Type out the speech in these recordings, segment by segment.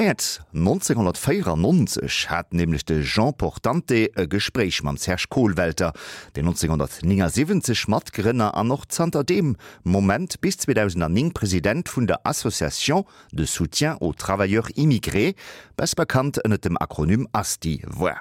Mäerz 1994 hat nämlech de Jean Portante e Gespréich mam Serge Kohlwelter, deen 1979 Matgrënner an och zanter deem Moment bis 2009 President vun der Association de soutien aux travailleurs immigrés, besser bekannt ënnert dem Akronym ASTI, war.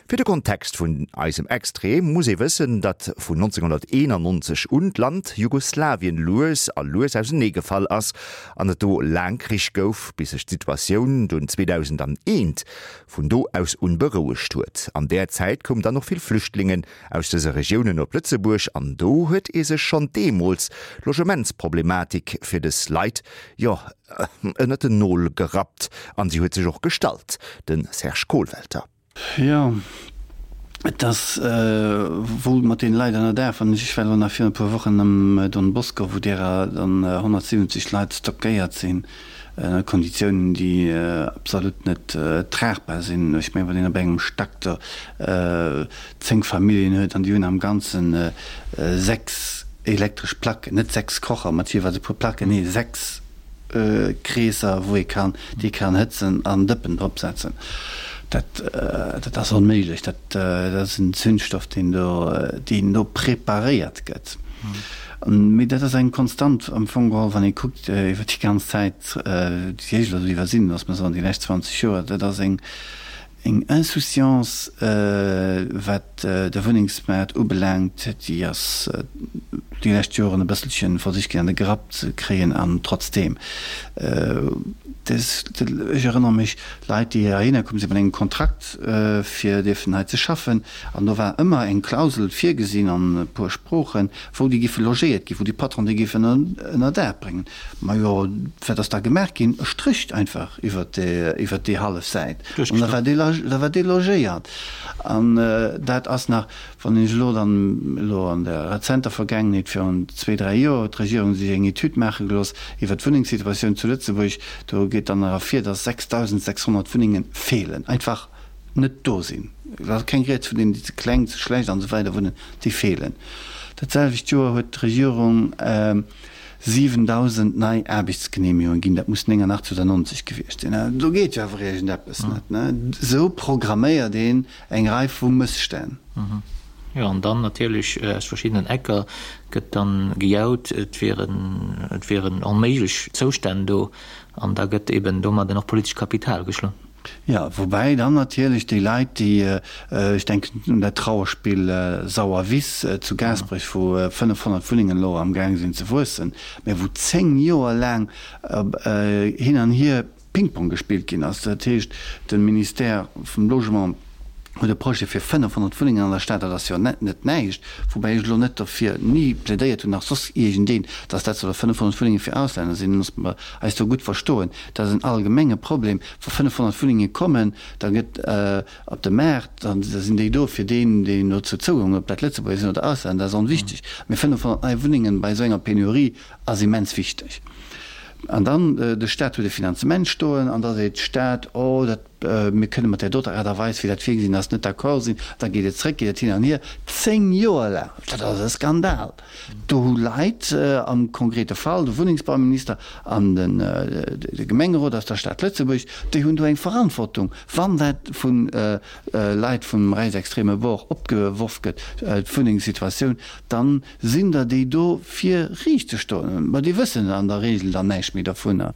Fir de Kontext vun eisem Extrait muss ee wëssen, datt vun 1991 un d'Land Jugoslawien lues a lues ausenee gefall ass an et do laang Krich gouf, bis sech d'Situatioun dunn 2001 vun do aus un berouegt huet. An där Zäit koum dann och vill Flüchtlingen aus dëse Regiounen op Lëtzebuerg an do huet ee sech schonn deemools d'Logementsproblematik fir dës Leit, jo, ënnert den Nol gerappt an si huet sech och gestallt. De Serge Kohlwelter. Jo, et ass wuel mat deene Leit ënner Daach. Wann ech, ech war elo nach virun e puer Wochen am Don Bosco, wou derer dann 170 Leit stockéiert sinn ënner Konditiounen, déi absolut net tragbar sinn. Ech mengen, wann een op engem Stack do 10 Familljen huet an déi hunn am Ganzen 6 elektresch Placken, net 6 Kocher mat jeeweils e puer Placken, nee 6 Kreesser, wou ee kann, déi ee kann hëtzen an Dëppen drop setzen. Dat, dat ass onméiglech. Dat, dat ass en Zündstoff, deen do, deen do preparéiert gëtt. Mee dat ass eng Konstant am Fong geholl, wann ee kuckt iwwer déi ganz Zäit, déi ech elo iwwer sinn, loosse mer soen déi lescht 20 Joer, dat ass eng, Eng Insouciance, wat de Wunnengsmaart ubelaangt, déi ass déi lescht Joren e bësselche versicht ginn an de Grapp ze kréien. An trotzdeem, ech erënnere mech, Leit, déi heihinner komm sinn mat engem Kontrakt, fir dierfen hei ze schaffen, an do war ëmmer eng Klausel virgesinn an e puer Sproochen, wou déi géife logéiert ginn, wou déi Patron déi géifen ënner Daach bréngen. Majo, wat ass da gemaach ginn? E Stréch einfach iwwert déi hallef Säit an da war da war delogéiert. An dat ass nach, wann ech elo dann elo an der rezenter Vergaangenheet, virun zwee, dräi Joer, huet d'Regierung sech eng Etüd maache gelooss iwwert d'Wunnengssituatioun zu Lëtzebuerg, do geet dann nach ervir, dass 6.600 Wunnenge feelen, einfach net do sinn. Et ass keng Rieds vun deenen, déi ze kleng, ze schlecht an esou weider wunnen, déi feelen. Dat selwecht Joer huet d'Regierung 7.000 nei Aarbechtsgeneemegungen ginn, dat muss 89 oder 90 gewiescht sinn. Do geet jo awer iergendeppes net, ne? Esou programméiert een eng Rei vu Mësstänn. Jo, an dann natierlech aus verschiddenen Ecker gëtt dann gejaut, et wieren, et wieren onméiglech Zoustänn do, an da gëtt eben domadden och politescht Kapital geschloen. Jo, woubäi dann natierlech déi Leit, déi, ech denken un dat Trauerspill Sauerwiss zu Gaasperech, wou 500 Wunnengen elo amgaang sinn ze wuessen, mä wou 10 Joer laang hin an hier Ping-Pong gespillt ginn ass. Dat heescht, de Ministère vum Logement huet e Projet fir 500 Wunnengen an der Stad, dat ass jo net näischt, woubäi ech elo net derfir ni plädéiert hunn, nach soss iergendeen, datt dat solle 500 Wunnenge fir Auslänner sinn. Loosse mer eis do gutt verstoen, dat ass en allgemenge Problem. Wa 500 Wunnenge kommen, da gëtt op de Maart, da sinn déi do fir deen, deen dozou Zougang huet, ob dat Lëtzebuerger sinn oder Auslänner, dat ass onwichtig. Mee 500 nei Wunnengen bei esou enger Penurie ass immens wichteg. An dann, de Stat huet e Finanzement stoen an da seet d'Stad, oh, dat, mir kënne mat där doter Aart a Weis, wéi dat virgesinn ass, net d'accord sinn. Da geet et zréck, geet et hin an hier, zéng Joer laang. Dat ass e Skandal! Do hu Leit, am konkrete Fall de Wunnengsbauminister an de Gemengerot aus der Stad Lëtzebuerg, déi hunn do eng Verantwortung, wann dat vu Leit vum reisextreme Bord opgeworf gëtt, d'Wunnengssituatioun, da sinn der déi do fir riicht ze stoen. Mä déi wëssen an der Regel dann näischt méi dervunner.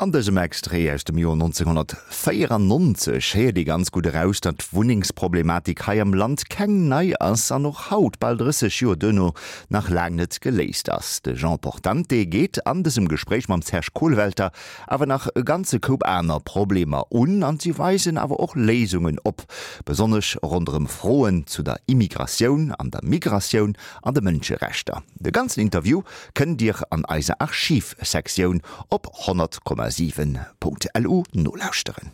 An dësem Extrait aus dem Joer 1994 héiert ee ganz gutt eraus, datt d'Wunnengsproblematik hei am Land keng nei ass an och haut, bal 30 Joer duerno, nach laang net geléist ass. De Jean Portante geet an dësem Gespréich mam Serge Kohlwelter awer nach e ganze Koup aner Problemer un an si weisen awer och Léisungen op, besonnesch ronderëm Froen zu der Immigratioun an der Migratioun an de Mënscherechter. De ganzen Interview kënnt Dir an eiser Archivsektioun op 100,7.lu nolauschteren.